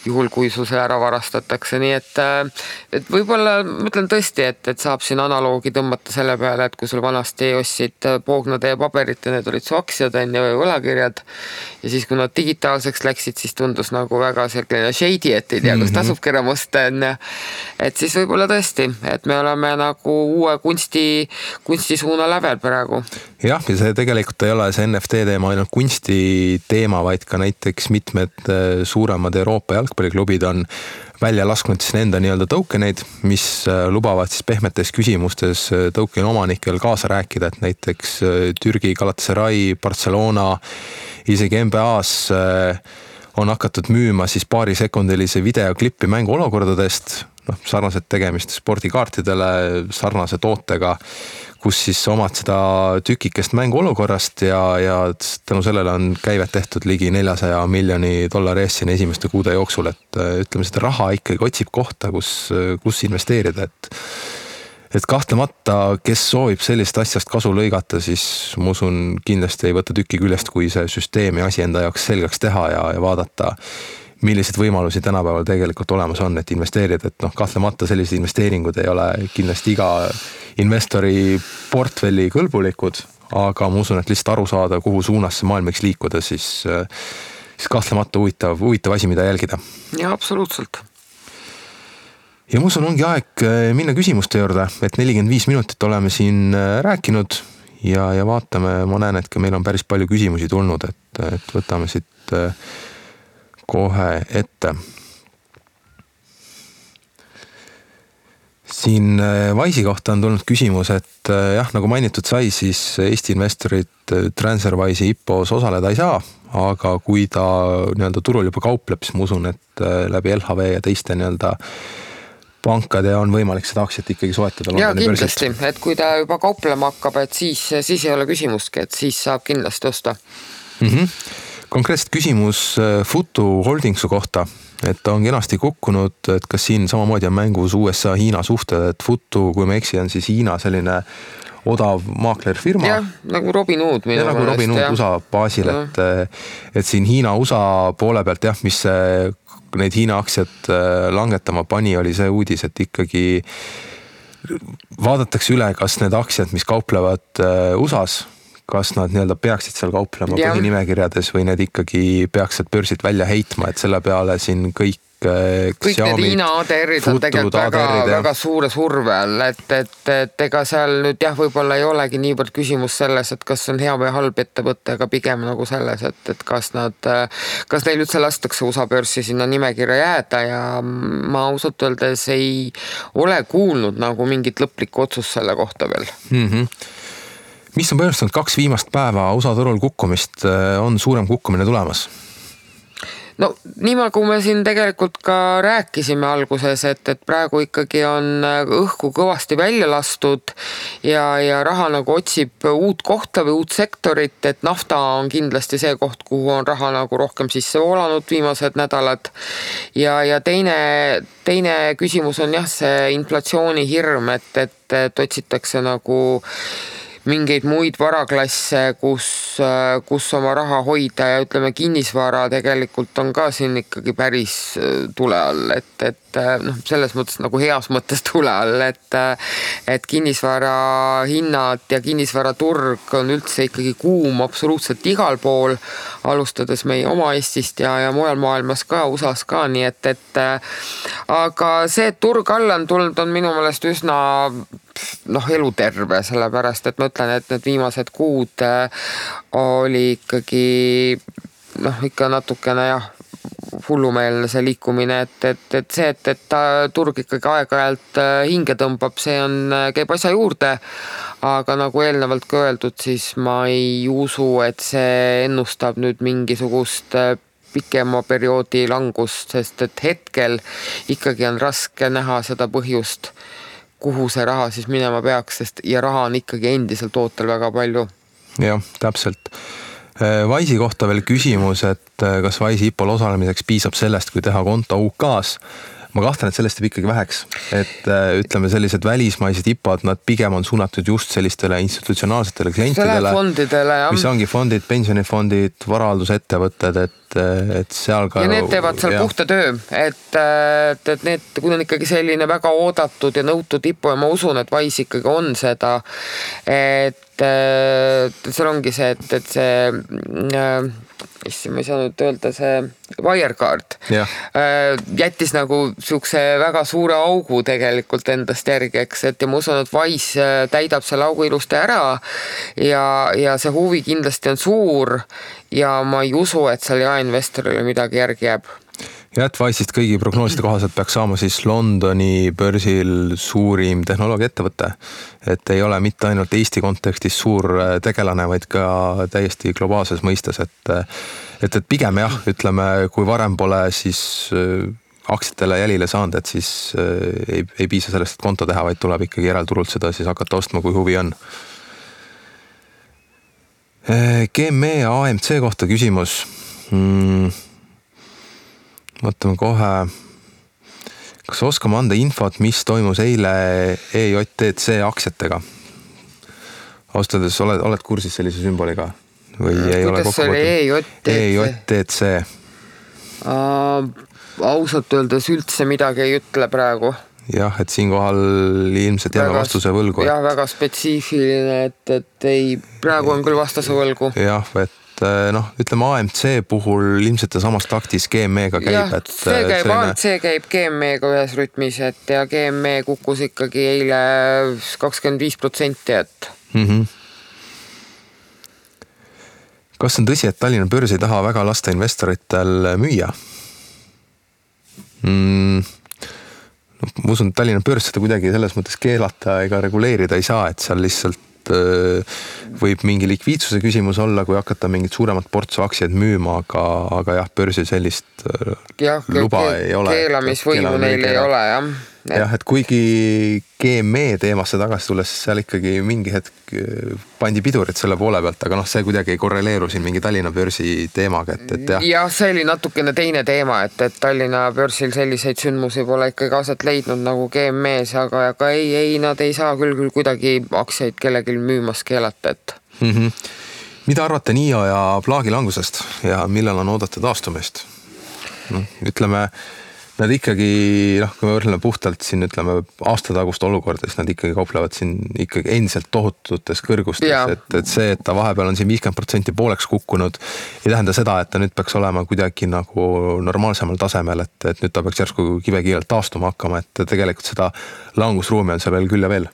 juhul, kui sul see ära varastatakse, nii et võib-olla mõtlen tõesti, et saab siin analoogi tõmmata selle peale, et kui sul vanasti ostsid poognade ja paberit ja need olid su aktsiad või võlakirjad ja siis kui nad digitaalseks läksid, siis tundus nagu väga selline shady, et ei tea, kus tasubki ära musta, et siis võib-olla tõesti, et me oleme nagu uue kunstisuuna lävel praegu. Jah, ja see tegelikult ei ole see NFT teema ainult kunsti teema, vaid ka näiteks mitmed suuremad Euroopa jalgpalliklubid on välja lasknud siis nende nii-öelda tokeneid, mis lubavad siis pehmetes küsimustes tokeni omanikel kaasa rääkida, et näiteks Türgi, Galatasaray, Barcelona, isegi NBA-s on hakatud müüma siis paarisekundilise videoklippi mänguolukordadest, sarnaselt tegemist spordikaartidele, sarnase tootega, kus siis omad seda tükikest mänguolukorrast ja tänu sellele on käivet tehtud ligi $400 miljoni eest siin esimeste kuude jooksul, et ütleme, seda raha ikkagi otsib kohta, kus investeerida, et kahtlemata, kes soovib sellist asjast kasu lõigata, siis ma usun kindlasti ei võta tükki küljest, kui see süsteemi asi enda jaoks selgeks teha ja vaadata, millised võimalusi tänapäeval tegelikult olemas on, et investeerida, et kahtlemata sellised investeeringud ei ole kindlasti iga investori portfelli kõlbulikud, aga ma usun, et lihtsalt aru saada, kuhu suunas see maailm võiks liikuda, siis kahtlemata huvitav asi, mida jälgida. Ja, absoluutselt. Ja ma usun, ongi aeg minna küsimuste juurde, et 45 minutit oleme siin rääkinud ja vaatame, ma näen, et ka meil on päris palju küsimusi tulnud, et võtame siit kohe ette. Siin Wise'i kohta on tulnud küsimus, et jah, nagu mainitud sai, siis Eesti investorid TransferWise'i IPO-s osaleda ei saa, aga kui ta nii-öelda turul juba kaupleb, siis ma usun, et läbi LHV ja teiste nii-öelda pankade on võimalik seda aktsiat ikkagi soetada. Ja kindlasti, et kui ta juba kauplema hakkab, et siis ei ole küsimustki, et siis saab kindlasti osta. Konkreetselt küsimus Futu Holdingsu kohta, et on kenasti kukkunud, et kas siin samamoodi on mängus USA-Hiina suhted, et Futu, kui me eksi, on siis Hiina selline odav maaklerfirma. Jah, nagu Robin Hood. Ja nagu Robin Hood USA baasil, et siin Hiina-USA poole pealt jah, mis neid Hiina aktsiat langetama pani, oli see uudis, et ikkagi vaadatakse üle, kas need aktsiad, mis kauplevad USA-s, kas nad nii-öelda peaksid seal kauplema põhinimekirjades või need ikkagi peaks sealt börsilt välja heitma, et selle peale siin kõik need Hiina ADR-id on tegelikult väga suure surve all, et ega seal nüüd jah, võib-olla ei olegi niivõrd küsimus selles, et kas on hea või halb ettevõte, aga pigem nagu selles, et kas neil üldse lastakse USA börsi sinna nimekirja jääda ja ma ausalt öeldes ei ole kuulnud nagu mingit lõplikku otsust selle kohta veel. Mis on põhjustanud 2 viimast päeva USA turul kukkumist, on suurem kukkumine tulemas? No nii nagu me siin tegelikult ka rääkisime alguses, et praegu ikkagi on õhku kõvasti välja lastud ja raha nagu otsib uut kohta või uut sektorit, et nafta on kindlasti see koht, kuhu on raha nagu rohkem sisse voolanud viimased nädalad ja teine küsimus on jah see inflatsiooni hirm, et otsitakse nagu mingeid muid varaklasse, kus oma raha hoida ja ütleme, kinnisvara tegelikult on ka siin ikkagi päris tule all, et noh, selles mõttes nagu heas mõttes tule all, et kinnisvara hinnad ja kinnisvaraturg on üldse ikkagi kuum absoluutselt igal pool, alustades meie oma Eestist ja mujal maailmas ka, USAs ka, nii et aga see, et turg alla on tulnud, on minu meelest üsna eluterve, sellepärast, et ma ütlen, et need viimased kuud oli ikkagi ikka natukene hullumeelne see liikumine, et see, et turg ikkagi aeg-ajalt hinge tõmbab, see käib asja juurde, aga nagu eelnevalt ka öeldud, siis ma ei usu, et see ennustab nüüd mingisugust pikema perioodi langust, sest et hetkel ikkagi on raske näha seda põhjust, kuhu see raha siis minema peaks, ja raha on ikkagi endiselt ootel väga palju. Jah, täpselt. Wise'i kohta veel küsimus, et kas Wise'i IPO-l osalemiseks piisab sellest, kui teha konto UK-s. Ma kahtlen, et sellest jääb ikkagi väheks, et ütleme sellised välismaised IPO-d, nad pigem on suunatud just sellistele institutsionaalsetele klientidele, mis ongi fondid, pensionifondid, varaaldusettevõtted, et seal ka... Ja need teevad seal puhta töö, et need, kui on ikkagi selline väga oodatud ja nõutud IPO ja ma usun, et Wise ikkagi on seda, et seal ongi see, et see ma ei saa nüüd öelda, see Wirecard jättis nagu siukse väga suure augu tegelikult endast järgi, eks, et ja ma usun, et Wise täidab selle augu ilusti ära ja see huvi kindlasti on suur ja ma ei usu, et seal jaeinvestorile midagi järgi jääb. Ja et Wise'ist kõigi prognooside kohaselt peaks saama siis Londoni börsil suurim tehnoloogiaettevõte. Et ei ole mitte ainult Eesti kontekstis suur tegelane, vaid ka täiesti globaalses mõistes. Et pigem jah, ütleme, kui varem pole siis aktsiatele jälile saanud, et siis ei piisa sellest, et konto teha, vaid tuleb ikkagi järelturult seda siis hakata ostma, kui huvi on. GME AMC kohta küsimus. Mõtleme kohe, kas oskame anda infot, mis toimus eile EJTC aktsiatega? Austades, oled kursis sellise sümboliga? Või ei ole kokku võtta? EJTC. Ausalt öeldes üldse midagi ei ütle praegu. Jah, et siinkohal ilmselt jääme vastuse võlgu. Jah, väga spetsiifiline, et ei, praegu on küll vastuse võlgu. Jah, et ütleme AMC puhul ilmselt samast taktis GME-ga käib. AMC käib GME-ga ühes rütmis, ja GME kukkus ikkagi eile 25%, et... Kas on tõsi, et Tallinna börs ei taha väga lasta investoritel müüa? Ma usun, et Tallinna börs seda kuidagi selles mõttes keelata ega reguleerida ei saa, et seal lihtsalt võib mingi likviidsuse küsimus olla, kui hakata mingit suuremat portsu aktsiaid müüma, aga jah, börsil sellist luba ei ole. Keelamisvõimu neil ei ole, jah. Jah, et kuigi GME teemasse tagasi tulles, siis seal ikkagi mingi hetk pandi pidurit selle poole pealt, aga see kuidagi ei korreleeru siin mingi Tallinna börsi teemaga, et jah. Jah, see oli natukene teine teema, et Tallinna börsil selliseid sündmusi pole ikkagi aset leidnud nagu GME-s, aga ei, nad ei saa küll kuidagi aktsiaid kellelgi müümas keelata, et... Mida arvate NIO ja plaagi langusest ja millal on oodata taastumist? Ütleme... Nad ikkagi, kui me võrdleme puhtalt siin, ütleme, aastatagust olukorda, siis nad ikkagi kauplevad siin ikkagi endiselt tohututes kõrgustes, et see, et ta vahepeal on siin 50% pooleks kukkunud, ei tähenda seda, et ta nüüd peaks olema kuidagi nagu normaalsemal tasemel, et nüüd ta peaks järsku kivekiirelt taastuma hakkama, et tegelikult seda langusruumi on seal veel küll ja veel.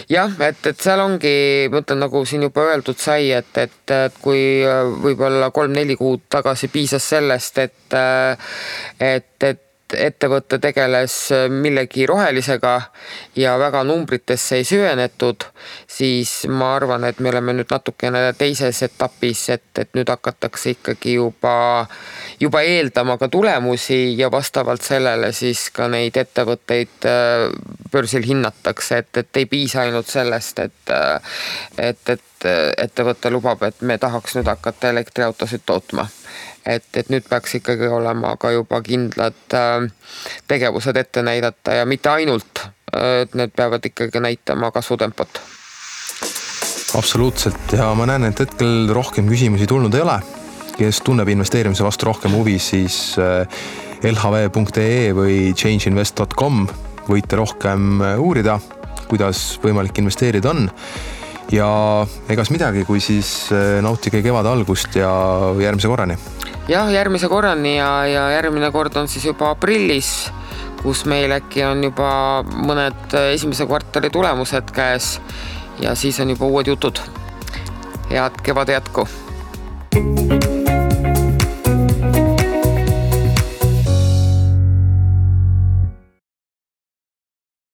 Jah, et seal ongi, ma ütlen, nagu siin juba öeldud sai, et kui võib-olla 3-4 kuud tagasi piisas sellest, et ettevõtte tegeles millegi rohelisega ja väga numbritesse ei süvenetud, siis ma arvan, et me oleme nüüd natukene teises etapis, et nüüd hakatakse ikkagi juba eeldama ka tulemusi ja vastavalt sellele siis ka neid ettevõtteid börsil hinnatakse, et ei piisa ainult sellest, et ettevõte lubab, et me tahaks nüüd hakata elektriautosid tootma. Et nüüd peaks ikkagi olema ka juba kindlad tegevused ette näidata ja mitte ainult, et need peavad ikkagi näitama kasvutempot. Absoluutselt ja ma näen, et hetkel rohkem küsimusi tulnud ei ole. Kes tunneb investeerimise vastu rohkem huvi, siis lhv.ee või changeinvest.com võite rohkem uurida, kuidas võimalik investeerida on. Ja egas midagi, kui siis nautige kevad algust ja järgmise korrani. Jah, järgmise korrani ja järgmine kord on siis juba aprillis, kus meil äkki on juba mõned esimese kvartali tulemused käes ja siis on juba uued jutud. Head kevad jätku!